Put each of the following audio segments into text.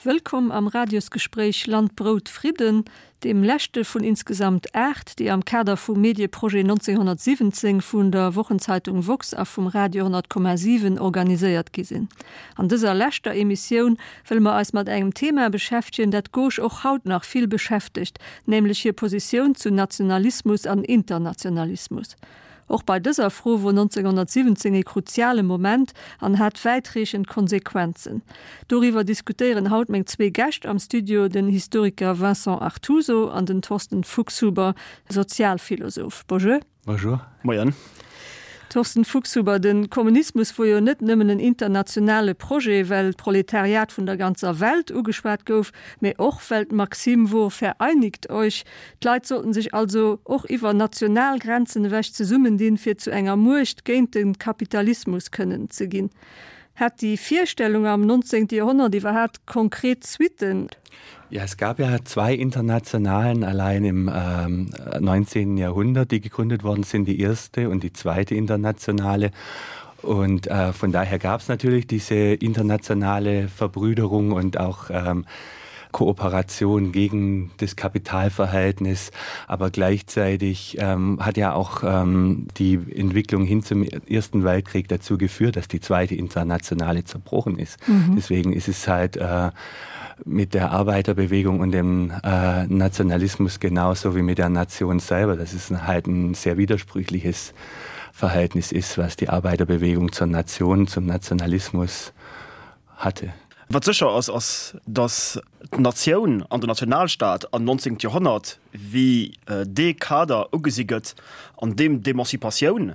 Wëllkomm am Radiosgespréich Land, Brout, Fridden, deem leschte vun insgesamt 8, déi am Kader vum Medieprojet 1917 vun der Wochenzeitung woxx a vum Radio 100,7 organiséiert gi sinn. An dëser leschter Emissioun wëlle mer eis mat engem Thema beschäftegen, dat d'Gauche och haut nach vill beschäftegt, nämlech hir Positioun zu Nationalismus an Internationalismus. Och bei dëser Fro wor 1917 ee kruziale Moment an hat wäitreechend Konsequenzen. Doriwwer diskutéieren haut meng zwee Gäscht am Studio, den Historiker Vincent Artuso an den Thorsten Fuchshuber, Sozialphilosoph. Bonjour. Bonjour. Moien. Thorsten Fuchshuber, de Kommunismus wor jo net nëmmen en internationale Projet, well d'Proletariat vun der ganzer Welt ugeschwat gouf, mä och well d'Maxime wor Vereinigt euch, D'Leit sollten sech also och iwwer national Grenzen ewech zesummendinn, fir zu enger Muecht géint de Kapitalismus kënnen ze ginn. Hat déi Virstellung am 19. Joerhonnert iwwerhaapt konkret Suitten? Ja, es gab ja zwei Internationalen allein im ähm, 19. Jahrhundert, die gegründet worden sind, die erste und die zweite Internationale. Und äh, von daher gab es natürlich diese internationale Verbrüderung und auch ähm, Kooperation gegen das Kapitalverhältnis, aber gleichzeitig ähm, hat ja auch ähm, die Entwicklung hin zum Ersten Weltkrieg dazu geführt, dass die zweite Internationale zerbrochen ist. Mhm. Deswegen ist es halt äh, mit der Arbeiterbewegung und dem äh, Nationalismus genauso wie mit der Nation selber. Das ist halt ein sehr widersprüchliches Verhältnis ist, was die Arbeiterbewegung zur Nation, zum Nationalismus hatte. Wat sécher ass, ass, datt d'Natioun an den Nationalstaat am 19. Joerhonnert wéi dee Kader ugesi gëtt, an deem d'Emancipatioun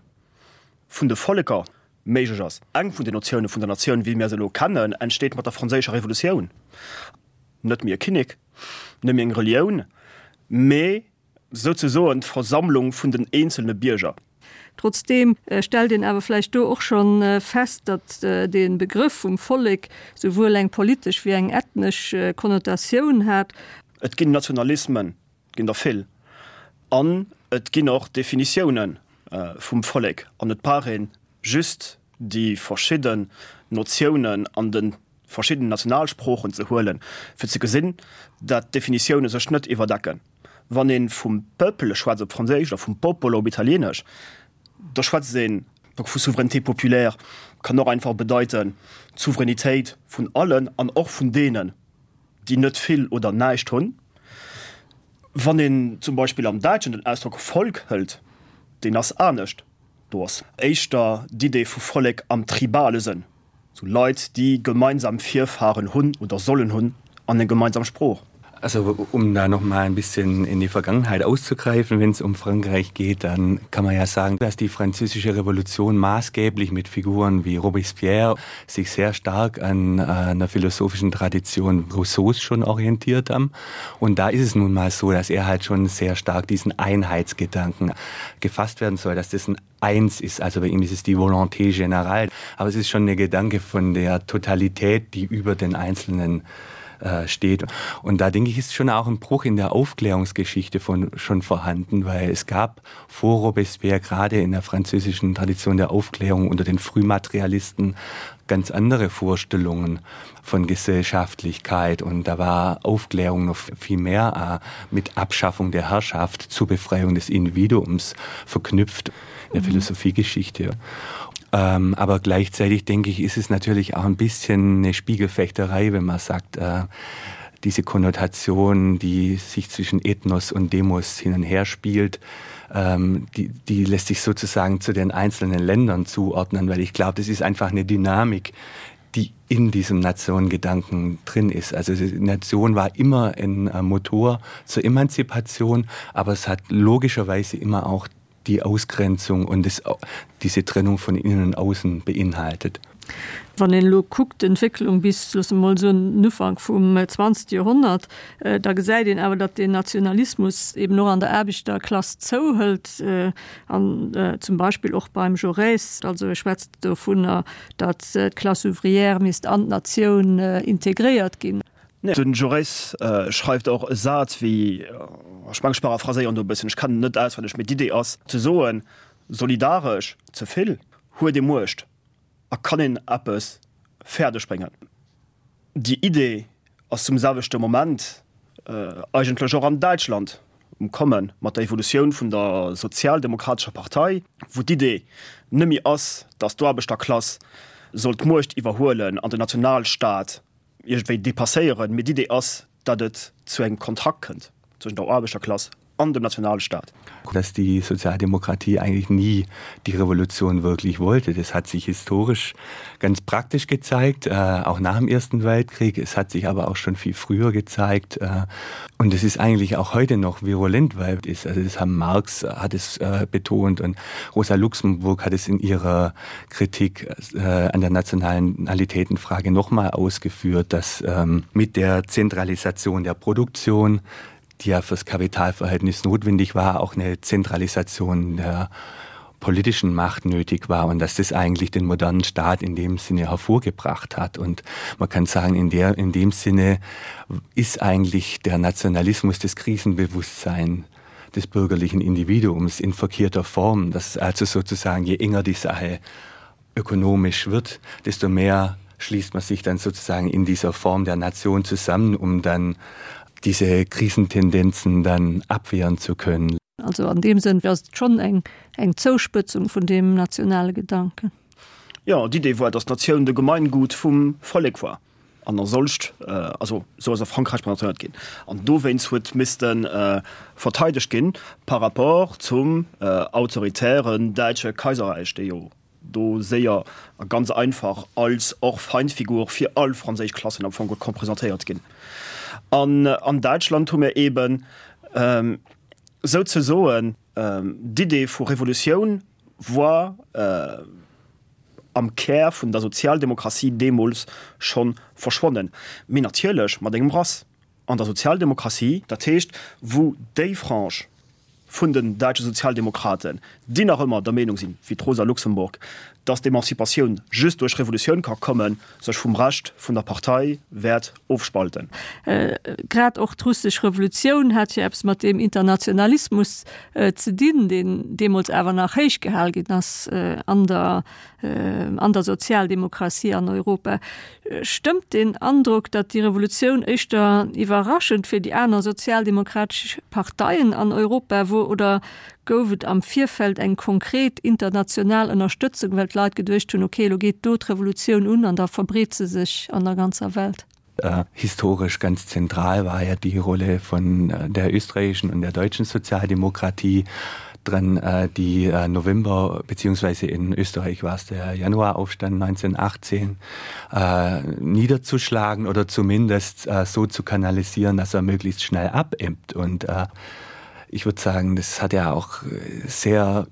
vun de Volleker méiglech ass. Eng vun den Notioune vun der Natioun, wéi mir se elo kennen, entsteet mat der Franséischer Revolutioun. Net méi e Kinnek, net méi eng Relioun, mee souzesoen d'Versammlung vun den eenzelne Bierger. Trotzdeem stellt een awer vläicht do och scho fest, datt de Begrëff vum Vollek souwuel eng politesch wéi eng ethnesch Konnotatioun hat. Et ginn Nationalismen, et ginn der vill, an et ginn och Definitioune vum Vollek, an et brauch ee just déi verschidden Notiounen an de verschidden Nationalsproochen ze huelen, fir ze gesinn, dat d'Definitioune sech net iwwerdecken. Wann ee vum Peuple schwätzt op Franséisch oder vum Popolo op Italieenesch, da schwätzt een vu Souveraineté populaire, kann och einfach bedeiten, d'Souveränitéit vun allen an och vun deenen, déi net vill oder näischt hunn. Wann een zum Beispill am Däitschen den Ausdrock Volk hëlt, deen ass anescht, do ass éischter d'Idee vu Vollek am tribale Sënn. Sou Leit, déi gemeinsam Virfahren hunn oder sollen hunn an eng gemeinsam Sprooch. Also um da noch mal ein bisschen in die Vergangenheit auszugreifen, wenn es um Frankreich geht, dann kann man ja sagen, dass die französische Revolution maßgeblich mit Figuren wie Robespierre sich sehr stark an äh, einer philosophischen Tradition Rousseaus schon orientiert haben. Und da ist es nun mal so, dass er halt schon sehr stark diesen Einheitsgedanken gefasst werden soll, dass das ein eins ist. Also bei ihm ist es die Volonté générale. Aber es ist schon der Gedanke von der Totalität, die über den Einzelnen äh, steht. Und da denke ich, ist schon auch ein Bruch in der Aufklärungsgeschichte von, schon vorhanden, weil es gab vor Robespierre gerade in der französischen Tradition der Aufklärung unter den Frühmaterialisten ganz andere Vorstellungen von Gesellschaftlichkeit und da war Aufklärung noch viel mehr äh, mit Abschaffung der Herrschaft zur Befreiung des Individuums verknüpft in der mhm. Philosophiegeschichte. Ähm, aber gleichzeitig denke ich, ist es natürlich auch ein bisschen eine Spiegelfechterei, wenn man sagt, äh, diese Konnotation, die sich zwischen Ethnos und Demos hin und her spielt, ähm, die, die lässt sich sozusagen zu den einzelnen Ländern zuordnen, weil ich glaube, das ist einfach eine Dynamik, die in diesem Nationengedanken drin ist. Also die Nation war immer ein äh, Motor zur Emanzipation, aber es hat logischerweise immer auch die Ausgrenzung und das, diese Trennung von innen und außen beinhaltet. Wann een elo kuckt, d'Entwécklung bis, loosse mer mol soen, den Ufank vum zwanzegste Joerhonnert, da gesäit een awer, datt deen Nationalismus eben och an der Aarbechterklass zouhëlt an zum Beispill och beim Jaurès, also e schwätzt dovunner, datt d'Classe ouvrière misst an d'Natioun integréiert ginn. Den Jaurès schreift och e Saz wéi, ech mengen ech paraphraséieren do e bëssen, ech kennen en net auswenneg, mee d'Idee ass ze soen, solidaresch ze vill huet ee Muecht a kann een eppes fäerdeg bréngen. Déi Idee. ass zum selwechte Moment eigentlech och an Däitschland um Komme mat der Evolutioun vun der sozialdemokratescher Partei, wou d'Idee nëmme ass, datt d'Aarbechterklass soll d'Muecht iwwerhuelen an den Nationalstaat iergendwéi depasséieren, mee d'Idee ass, datt et zu engem Kontrakt kënnt zwëschen der Aarbechterklass an dem Nationalstaat. Dass die Sozialdemokratie eigentlich nie die Revolution wirklich wollte. Das hat sich historisch ganz praktisch gezeigt, äh, auch nach dem Ersten Weltkrieg. Es hat sich aber auch schon viel früher gezeigt. Äh, und es ist eigentlich auch heute noch virulent, weil es, also das haben Marx hat es äh, betont und Rosa Luxemburg hat es in ihrer Kritik äh, an der Nationalitätenfrage noch mal ausgeführt, dass ähm, mit der Zentralisation der Produktion, die ja fürs Kapitalverhältnis notwendig war, auch eine Zentralisation der politischen Macht nötig war und dass das eigentlich den modernen Staat in dem Sinne hervorgebracht hat. Und man kann sagen, in, der, in dem Sinne ist eigentlich der Nationalismus das Krisenbewusstsein des bürgerlichen Individuums in verkehrter Form, dass also sozusagen je enger die Sache ökonomisch wird, desto mehr schließt man sich dann sozusagen in dieser Form der Nation zusammen, um dann diese Krisentendenzen dann abwehren zu können. Also an deem Sënn ass et schonn eng eng Zouspëtzung vun deem nationale Gedanken. Jo, d'Idee war, datt d'Natioun de Gemeingut vum Vollek war an a solcht, also esou ass a Frankräich presentéiert ginn an dowéinst huet misste verteidegt ginn par rapport zum autoritären däitsche Kaiserräich, dee jo do séier a ganz einfach als och Feindfigur fir all franséisch Klassen am Fong konnt presentéiert ginn. An an Däitschland hu mir eeben souzesoen d'Idee vu Revolutioun war am Kär vun der Sozialdemokratie deemools scho verschwonnen, mee natierlech mat engem Rass an der Sozialdemokratie, dat heescht wou déi Frange vun den däitsche Sozialdemokraten, déi nach ëmmer der Meenung sinn, wéi d'Rosa Luxemburg, datt d'Emanzipatioun just duerch Revolutioun ka kommen, sech vum Rescht vun der Partei wäert ofspalten. Grad och d'russesch Revolutioun hat jo eppes mat deem Internationalismus ze dinn, deen deemools awer nach héich gehal ginn ass an der an der Sozialdemokratie an Europa. Stëmmt deen Androck, datt déi Revolutioun éischter iwwerraschend fir déi aner sozialdemokratesch Parteien an Europa wor oder gouf et am Virfeld eng konkret international Ënnerstëtzung, well d'Leit geduecht hunn, ok, elo geet do d'Revolutioun un an da verbreet se sech an der ganzer Welt? Historisch ganz zentral war ja die Rolle von der österreichischen und der deutschen Sozialdemokratie dran äh, die äh, November beziehungsweise in Österreich war es der Januaraufstand 1918 äh, niederzuschlagen oder zumindest äh, so zu kanalisieren, dass er möglichst schnell abebbt. Und äh, ich würde sagen, das hat ja auch sehr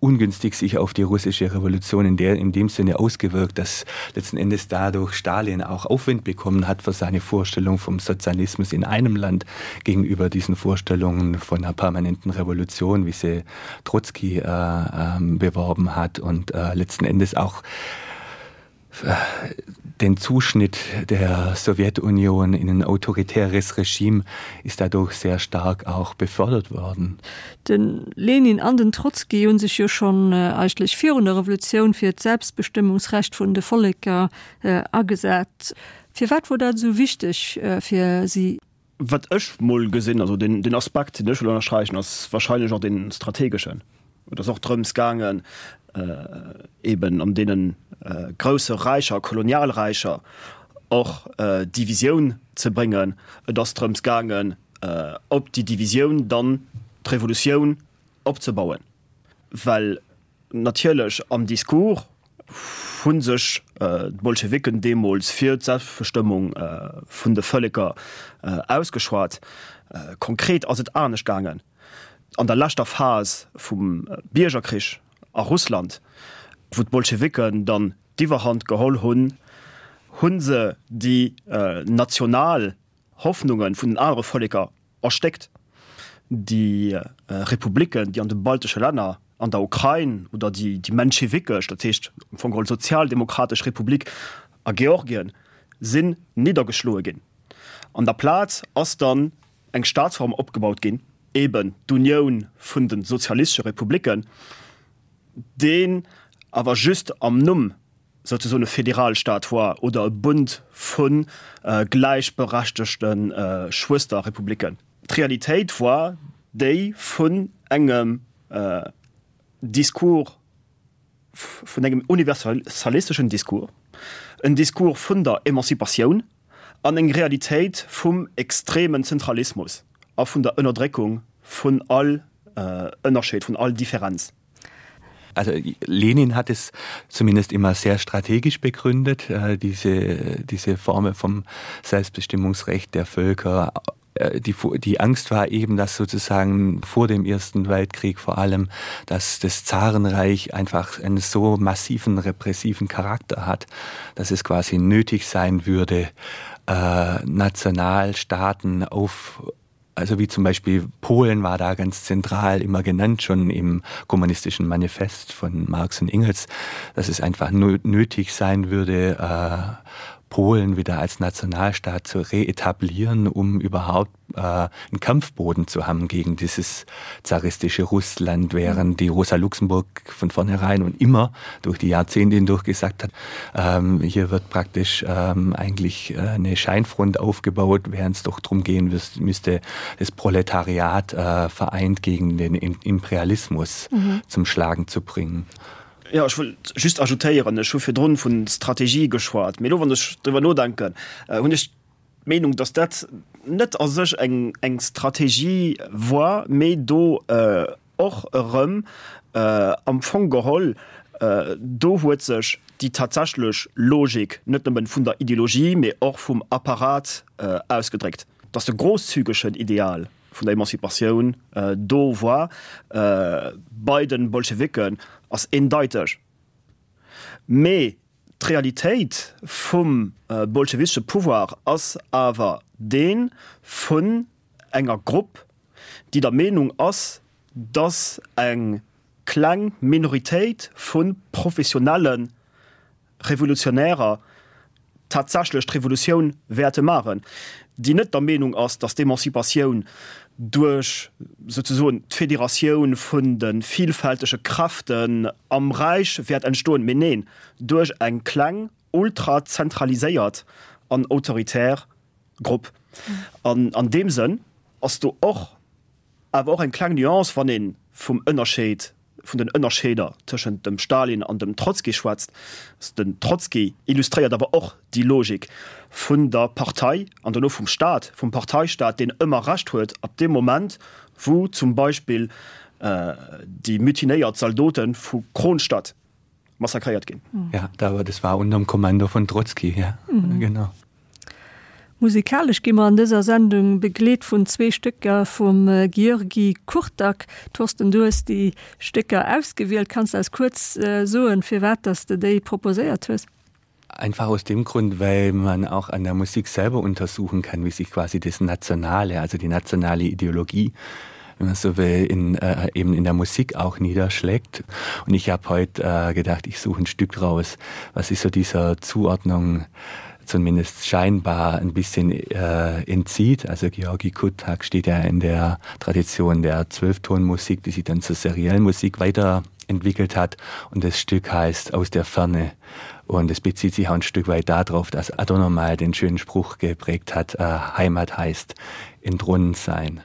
ungünstig sich auf die russische Revolution in der in dem Sinne ausgewirkt, dass letzten Endes dadurch Stalin auch Aufwind bekommen hat für seine Vorstellung vom Sozialismus in einem Land gegenüber diesen Vorstellungen von einer permanenten Revolution, wie sie Trotzki äh, äh, beworben hat und äh, letzten Endes auch den Zuschnitt der Sowjetunion in ein autoritäres Regime ist dadurch sehr stark auch befördert worden. De Lenin an den Trotzki hu sech jo schonn eigentlech virun der Revolutioun fir d'Selbstbestëmmungsrecht vun de Volleker agesat. Firwat wor dat esou wichteg fir si? Wat ech mol gesinn, also deen Aspekt, deen ech wëll ënnersträichen, ass wahrscheinlech och dee strategeschen. Et ass och drëms gaangen, eben an deene grousse Räicher, Kolonialräicher och Divisioun ze bréngen. Et ass drëms gaangen, op déi Divisioun dann d'Revolutioun opzebauen, well Natierlech am Discours hu sech d'Bolschewiken deemools fir d'Selbstbestëmmung vun de Vëlleker ausgeschwat. Konkret ass et anescht gaangen. An der leschter Phas vum Biergerkrich a Russland, wou d'Bolschewiken dann d'Iwwerhand geholl hunn, hu se déi national Hoffnunge vun den anere Vëlleker erstéckt. Déi Republiken, déi an de baltesche Länner, an der Ukrain oder déi menschewikesch, dat heescht am Fong geholl sozialdemokratesch Republik a Georgien, sinn niddergeschloe ginn. An der Plaz ass dann eng Staatsform opgebaut ginn, eben d'Unioun vun de sozialistesche Republiken, deen awer just am Numm. souzesoen e Federalstaat war oder e Bund vu gläichberechtegte Schwësterrepubliken. D'Realitéit war déi vun engem Discours, vun engem universalisteschen Discours, en Discours vun der Emanzipatioun an eng Realitéit vum extremen Zentralismus a vun der Ënnerdréckung vun all Ënnerscheed, vun all Differenz. Also Lenin hat es zumindest immer sehr strategisch begründet, äh, diese, diese Formel vom Selbstbestimmungsrecht der Völker äh, die, die Angst war eben, dass sozusagen vor dem Ersten Weltkrieg vor allem, dass das Zarenreich einfach einen so massiven repressiven Charakter hat, dass es quasi nötig sein würde, äh, Nationalstaaten auf also wie zum Beispiel Polen war da ganz zentral immer genannt schon im kommunistischen Manifest von Marx und Engels, dass es einfach nötig sein würde, äh, Polen wieder als Nationalstaat zu reetablieren, um überhaupt äh, einen Kampfboden zu haben gegen dieses zaristische Russland, während die Rosa Luxemburg von vornherein und immer durch die Jahrzehnte hindurch gesagt hat, ähm, hier wird praktisch ähm, eigentlich äh, eine Scheinfront aufgebaut, während es doch darum gehen müsste, das Proletariat äh, vereint gegen den Imperialismus mhm. zum Schlagen zu bringen. Jo, ech wollt just ajoutéieren, ech hu virdrun vun Strategie geschwat, mee elo wann ech driwwer nodenken, hunn ech d'Meenung, datt dat net a sech eng eng Strategie war, mee do och erëm am Fong geholl, do huet sech déi tatsächlech Logik net nëmmen vun der Ideologie, mee och vum Apparat ausgedréckt, datt de grosszügegen Ideal, vun der Emanzipatioun do war bei den Bolschewiken ass eendeiteg, mee d'Realitéit vum bolschewistesche Pouvoir ass awer dee vun enger Grupp, déi der Meenung ass, datt eng kleng Minoritéit vu professionelle Revolutionärer tatsächlech d'Revolutioun wäerte maachen, déi net der Meenung ass, datt d'Emanzipatioun duerch souzesoen d'Federatioun vun de vielfältege Kräften am Räich wäert entstoen, mee neen, duerch eng kleng, ultrazentraliséiert an autoritär Grupp. An an deem Sënn ass do och awer och eng kleng Nuance, wann ee vum Ënnerscheed vun den Ënnerscheeder tëschent dem Stalin an dem Trotzki schwätzt. Den Trotzki illustréiert awer och déi Logik vun der Partei an dono vum Staat, vum Parteistaat, deen ëmmer Recht huet ab deem Moment, wou zum Beispill déi mutinéiert Zaldote vu Kronstadt massakréiert ginn. Ja, das war unterm Kommando von Trotzki, ja, genau. Musikalesch gi mer an dëser Sendung begleet vun zwee Stécker vum György Kurtág. Thorsten, du hues déi Stécker ausgewielt. Kanns de eis kuerz soen, firwat dass de déi proposéiert hues? Einfach aus dem Grund, weil man auch an der Musik selber untersuchen kann, wie sich quasi das Nationale, also die nationale Ideologie, wenn man so will, in, äh, eben in der Musik auch niederschlägt. Und ich habe heute äh, gedacht, ich suche ein Stück raus, was ist so dieser Zuordnung zumindest scheinbar ein bisschen äh, entzieht. Also Georgi Kutak steht ja in der Tradition der Zwölftonmusik, die sich dann zur seriellen Musik weiterentwickelt hat. Und das Stück heißt Aus der Ferne. Und es bezieht sich auch ein Stück weit darauf, dass Adorno mal den schönen Spruch geprägt hat, äh, Heimat heißt entronnen sein.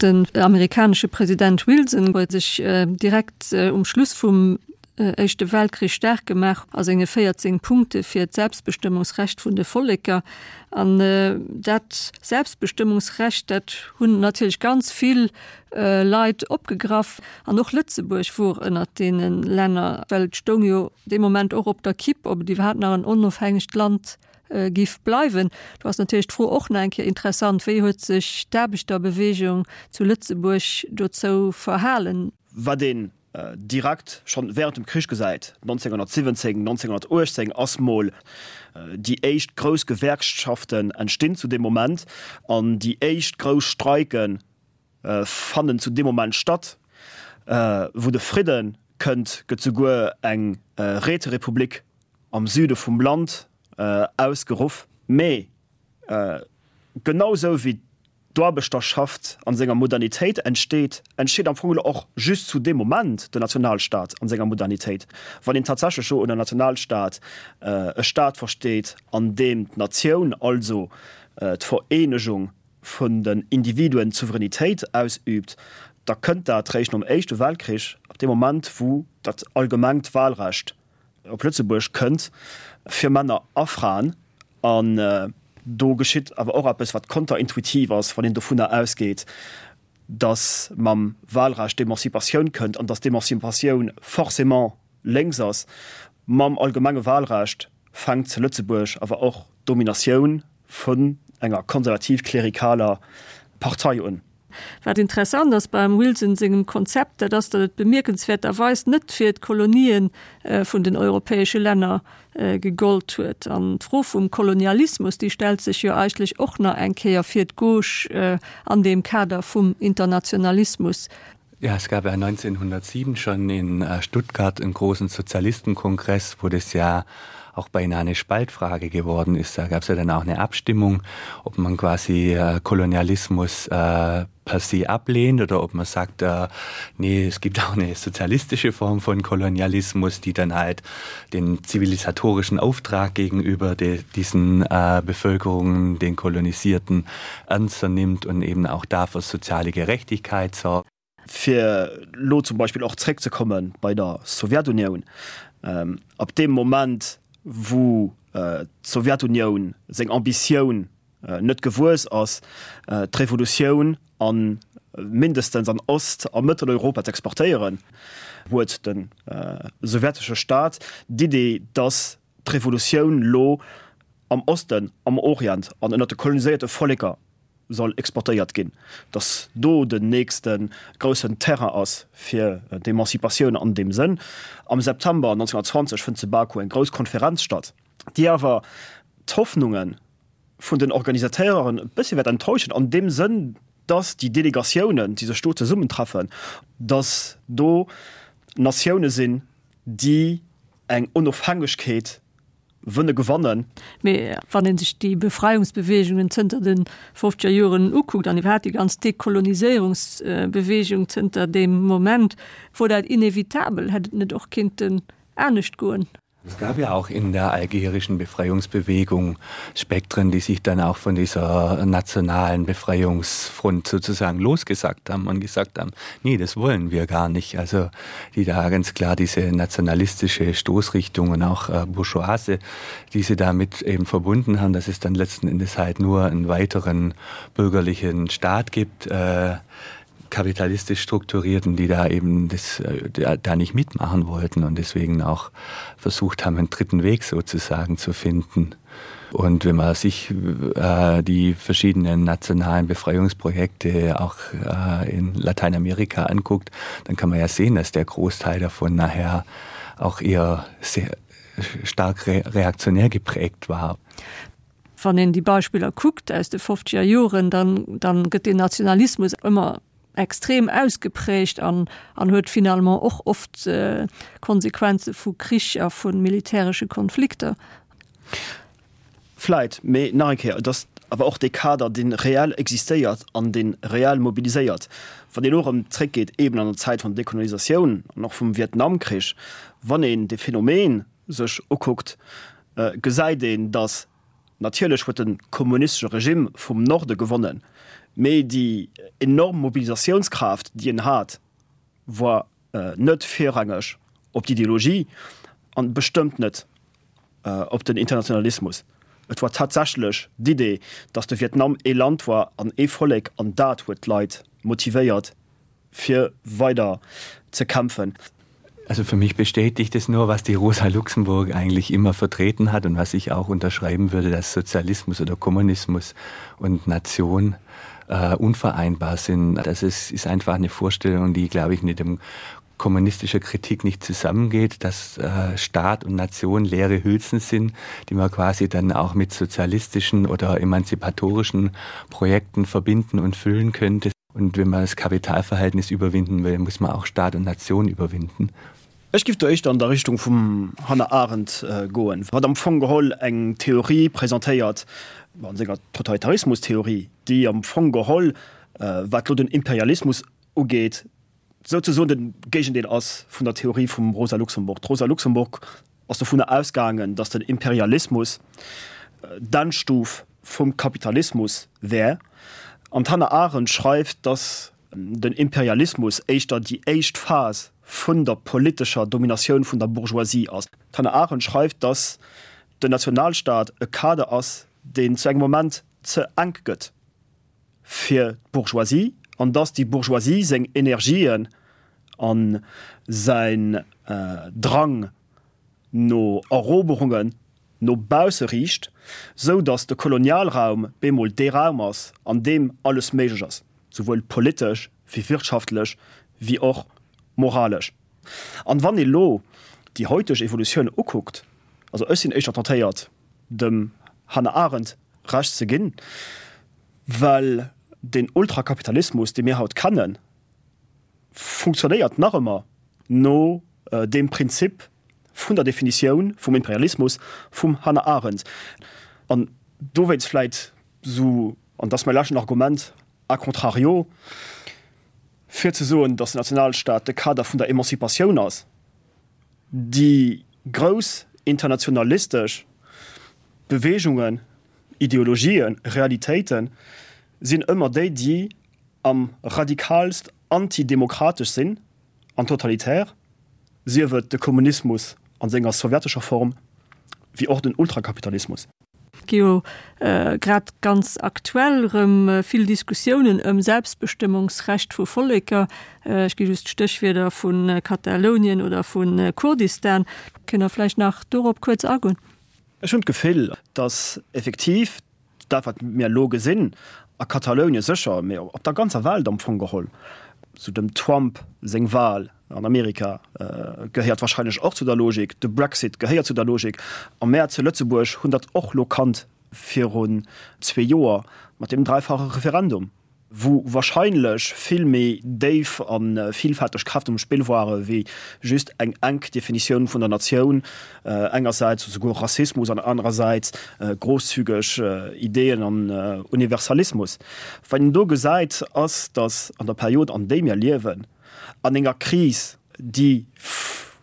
Den amerikanesche President Wilson huet sech direkt um Schluss vum Éischte Weltkrich staark gemaach a senge 14 Punkte fir d'Selbstbestëmmungsrecht vun de Volleker. An dat Selbstbestëmmungsrecht, dat hunn natierlech ganz vill Leit opgegraff. An och Lëtzebuerg wor ënnert deene Länner, well et stoung jo dee Moment och op der Kipp, ob et iwwerhaapt nach en onofhängegt Land giff bleiwen. Do ass natierlech d'Fro och nach eng Kéier interessant, Wéi huet sech d'Aarbechterbewegung zu Lëtzebuerg dozou verhalen? Wat een direkt schonn während dem Krich gesäit, 1917, 1918 ass mol déi éischt grouss Gewerkschaften entstinn zu deem Moment an déi éischt grouss Streiken fannen zu deem Moment statt. Wou de Fridde kënnt, gëtt souguer eng Räterepublik am Süde vum Land ausgeruff. Mee genau sou wéi d'Aarbechterschaft an senger Modernitéit entsteet, entsteet am Fong elo och just zu deem Moment den Nationalstaat an senger Modernitéit. Wann een tatsächlech elo ënner Nationalstaat e Staat versteet, an deem d'Natioun, also d'Vereenegung vun den Individuen, d'Souveränitéit ausüübt, da kënnt dat réischt nom Éischte Weltkrich, ab deem Moment wou dat allgemengt Wahlrecht op Lëtzebuerg kënnt, fir Männer a Fraen. An do geschitt awer och eppes, wat konterintuitiv ass, wann een dovunner ausgeet, datt mam Wahlrecht d'Emancipatioun kënnt an datt d'Emancipatioun forcément lénks ass. Mam allgemenge Wahlrecht fänkt zu Lëtzebuerg awer och d'Dominatioun vun enger konservativ-klerikaler Partei un. Wat interessant ass beim Wilson sengem Konzept, dat ass, datt et bemierkenswäerterweis net fir d'Kolonien vun den europäesche Länner gegollt huet. An d'Fro vum Kolonialismus, déi stellt sech jo eigentlech och nach eng Kéier fir d'Gauche an deem Kader vum Internationalismus. Ja, es gab ja 1907 schon in äh, Stuttgart einen großen Sozialistenkongress, wo das ja auch beinahe eine Spaltfrage geworden ist. Da gab es ja dann auch eine Abstimmung, ob man quasi äh, Kolonialismus äh, per se ablehnt oder ob man sagt, äh, nee, es gibt auch eine sozialistische Form von Kolonialismus, die dann halt den zivilisatorischen Auftrag gegenüber de, diesen äh, Bevölkerungen, den Kolonisierten ernster nimmt und eben auch dafür soziale Gerechtigkeit sorgt. Fir elo zum Beispill och zréckzekomme bei der Sowjetunioun, Ab deem Moment, wou d'Sowjetunioun seng Ambitioun net gewuess ass, d'Revolutioun a mindestens an Ost a Mëtteleuropa z'exportéieren, huet de sowjetesche Staat d'Idee, datt d'Revolutioun lo am Osten, am Orient an ënnert de koloniséierte Volleker soll exportéiert ginn, datt do den nächste groussen Terrain ass fir d'Emancipatioun an deem Sënn. Am September 1920 fënnt zu Baku eng grouss Konferenz statt, déi awer d'Hoffnunge vun den Organisateuren e bëssi wäert enttäuschen an deem Sënn, datt déi Delegatiounen, déi sech do zesummentreffen, datt do Natioune sinn, déi eng Onofhängegkeet wënne gewannen. Mee wann ee sech déi Befreiungsbeweegungen zënter de fofzeger Joren ukuckt an iwwerhaapt déi ganz Dekoloniséierungsbeweegung zënter deem Moment, wor dat inevitabel? Hätt et net och kinnten anescht goen? Es gab ja auch in der algerischen Befreiungsbewegung Spektren, die sich dann auch von dieser nationalen Befreiungsfront sozusagen losgesagt haben und gesagt haben: Nee, das wollen wir gar nicht. Also die da ganz klar diese nationalistische Stoßrichtung und auch äh, Bourgeoise, die sie damit eben verbunden haben, dass es dann letzten Endes halt nur einen weiteren bürgerlichen Staat gibt. Äh, kapitalistisch strukturierten, die da eben das, äh, da nicht mitmachen wollten und deswegen auch versucht haben, einen dritten Weg sozusagen zu finden. Und wenn man sich äh, die verschiedenen nationalen Befreiungsprojekte auch äh, in Lateinamerika anguckt, dann kann man ja sehen, dass der Großteil davon nachher auch eher sehr stark re reaktionär geprägt war. Wann een déi Beispiller kuckt aus de fofzeger Joren, dann, dann gëtt deen Nationalismus ëmmer extrem ausgeprägt an, an huet finalement och oft Konsequenze vu Krich a vu militäresche Konflikter. Vläit, mee nach eng Kéier, et ass awer och dee Kader, dee reell existéiert an dee reell mobiliséiert. Wann een elo erëm zréckgeet eeben an der Zäit vun der Dekolonisatioun an och vum Vietnamkrich, wann een dee Phänomen sech ukuckt, gesäit een, datt natierlech huet de kommunistesche Regime vum Norde gewonnen. Mee déi enorm Mobilisatiounskraaft, déi en hat, war net virrangeg op d'Ideologie an bestëmmt net op den Internationalismus. Et war tatsächlech d'Idee, datt de Vietnam ee Land war an ee Vollek an dat huet d'Leit motivéiert fir weider ze kämpfen. Also für mich bestätigt es nur, was die Rosa Luxemburg eigentlich immer vertreten hat und was ich auch unterschreiben würde, dass Sozialismus oder Kommunismus und Nation äh, unvereinbar sind. Das ist, ist einfach eine Vorstellung, die, glaube ich, mit dem kommunistischer Kritik nicht zusammengeht, dass äh, Staat und Nation leere Hülsen sind, die man quasi dann auch mit sozialistischen oder emanzipatorischen Projekten verbinden und füllen könnte. Und wenn man das Kapitalverhältnis überwinden will, muss man auch Staat und Nation überwinden. Ech giff do éischter an der Richtung vum Hannah Arendt goen, wat am Fong geholl eng Theorie presentéiert, an senger Totalitarismustheorie, déi am Fong geholl, wat lo den Imperialismus ugeet, souzesoen de Géigendeel ass vun der Theorie vum Rosa Luxemburg. D'Rosa Luxemburg ass dovunner ausgaangen, datt den Imperialismus d'Endstuf vum Kapitalismus wär. An d'Hannah Arendt schreift, datt den Imperialismus éischter déi éischt Phas vun der politescher Dominatioun vun der Bourgeoisie ass. D'Hannah Arendt schreift, datt den Nationalstaat e Kader ass, deen zu engem Moment ze enk gëtt fir d'Bourgeoisie an datt déi Bourgeoisie seng Energien a säin Drang no Eroberungen no bausse riicht, sou datt de Kolonialraum bemol dee Raum ass, an deem alles méiglech ass, souwuel politesch wéi wirtschaftlech wéi och moralesch. An wann ee lo déi hauteg Evolutioun ukuckt, also ech sinn éischter tentéiert dem Hannah Arendt Recht ze ginn, well deen Ultrakapitalismus, dee mir haut kennen, funktionéiert nach ëmmer no deem Prinzip vun der Definitioun vum Imperialismus vum Hannah Arendt. An dowéinst vläit esou, an dat ass mäi leschten Argument, a contrario, fir ze soen, datt den Nationalstaat de Kader vun der Emanzipatioun ass, déi grouss internationalistesch Beweegungen, Ideologien, Realitéite sinn ëmmer déi, déi am radikaalst antidemokratesch sinn an totalitär, sief et de Kommunismus an senger sowjetescher Form, wéi och den Ultrakapitalismus. Et gi jo grad ganz aktuell erëm vill Diskussiounen ëm Selbstbestëmmungsrecht vu Volleker. Ech gi just d'Stéchwierder vu Katalounien oder vu Kurdistan. Kënnt Der vläicht nach dorop kuerz agoen? Ech hunn d'Gefill, datt effektiv dat, wat mir elo gesinn, a Katalounien sécher, mee op der ganzer Welt am Fong geholl, sou dem Trump seng Wal an Amerika gehéiert wahrscheinlech och zu der Logik, de Brexit gehéiert zu der Logik, a mär zu Lëtzebuerg hunn dat och elo kannt virun zwee Joer mat deem dräifache Referendum. wou wahrscheinlech vill méi déif a villfälteg Kräften um Spill ware wéi just eng enk Definitioun vun der Natioun, engersäits souguer Rassismus an anerersäits grosszügeg Ideeën an Universalismus. Wat een do gesäit, ass, datt an der Period an déi mir liewen, an enger Kris, déi,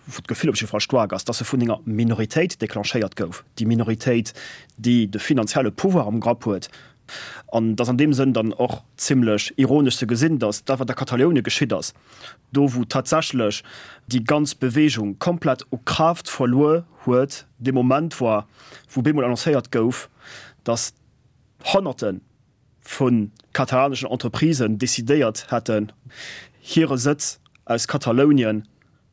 wou d'Gefill op jidde Fall staark ass, datt se vun enger Minoritéit declenchéiert gouf, déi Minoritéit, déi de finanzielle Pouvoir am Grapp huet, An et ass an deem Sënn dann och zimlech ironesch ze gesinn, datt dat, wat a Kataloune geschitt ass, do wou tatsächlech déi ganz Beweegung komplett u Kraaft verluer huet, dee Moment war, wou bemol annoncéiert gouf, datt Honnerte vu katalaneschen Entreprisen decidéiert hätten, hire Sëtz aus Katalounien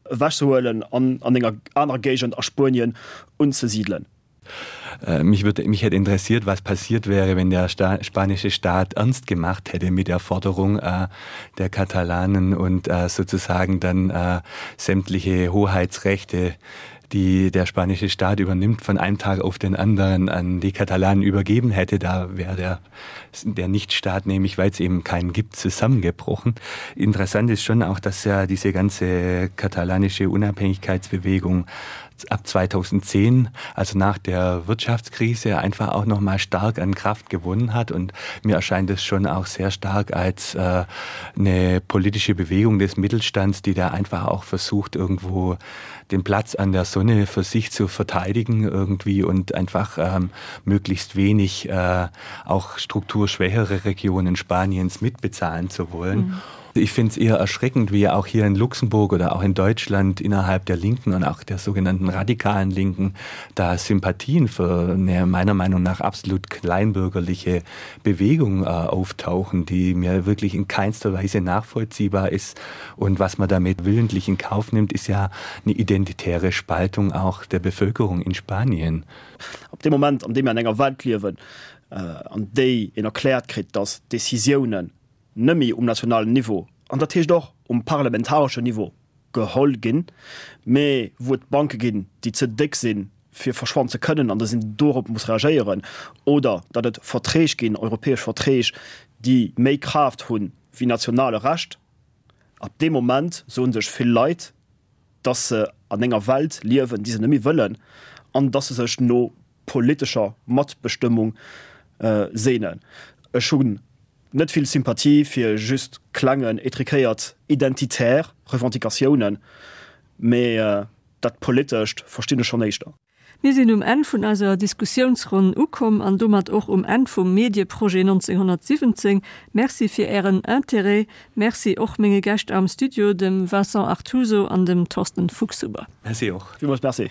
ewechzehuelen an an enger anerer Géigend a Spuenien unzesidelen. Äh, mich würde mich hätte interessiert, was passiert wäre, wenn der Sta spanische Staat ernst gemacht hätte mit der Forderung äh, der Katalanen und äh, sozusagen dann äh, sämtliche Hoheitsrechte, die der spanische Staat übernimmt, von einem Tag auf den anderen an die Katalanen übergeben hätte. Da wäre der, der Nichtstaat, nämlich weil es eben keinen gibt, zusammengebrochen. Interessant ist schon auch, dass ja diese ganze katalanische Unabhängigkeitsbewegung. ab 2010, also nach der Wirtschaftskrise einfach auch noch mal stark an Kraft gewonnen hat und mir erscheint es schon auch sehr stark als äh, eine politische Bewegung des Mittelstands, die da einfach auch versucht irgendwo den Platz an der Sonne für sich zu verteidigen irgendwie und einfach ähm, möglichst wenig äh, auch strukturschwächere Regionen Spaniens mitbezahlen zu wollen. Mhm. Ich finde es eher erschreckend, wie auch hier in Luxemburg oder auch in Deutschland innerhalb der Linken und auch der sogenannten radikalen Linken da Sympathien für eine meiner Meinung nach absolut kleinbürgerliche Bewegung äh, auftauchen, die mir wirklich in keinster Weise nachvollziehbar ist. Und was man damit willentlich in Kauf nimmt, ist ja eine identitäre Spaltung auch der Bevölkerung in Spanien. Ab dem Moment, an deem mir an enger Welt liewen, an déi een erkläert kritt, datt Décisiounen nëmme um nationalen Niveau, an dat heescht och um parlamentareschen Niveau, geholl ginn, mä wou et Banke ginn, déi ze déck sinn, fir verschwannen ze kënnen, an datt een dorop muss reagéieren, oder datt et Verträg ginn, europäesch Verträg, déi méi Kraaft hu wéi nationale Recht, ab deem Moment soe sech vill Leit, datt se an enger Welt liewen, déi se net méi wëllen, an datt se sech no politescher Matbestëmmung sehnen. Ech hunn net vill Sympathie fir just klengen, étriquéiert identitär Revendicatiounen, mee dat Politescht verstinn ech schonn éischter. Mir sinn um Enn vun eiser Diskussiounsronn ukomm an domat och um Enn vum Medieprojet 1917. Merci fir Ären Interêt. Merci och menge Gäscht am Studio, dem Vincent Artuso an dem Thorsten Fuchshuber. Merci och. Villmools Merci.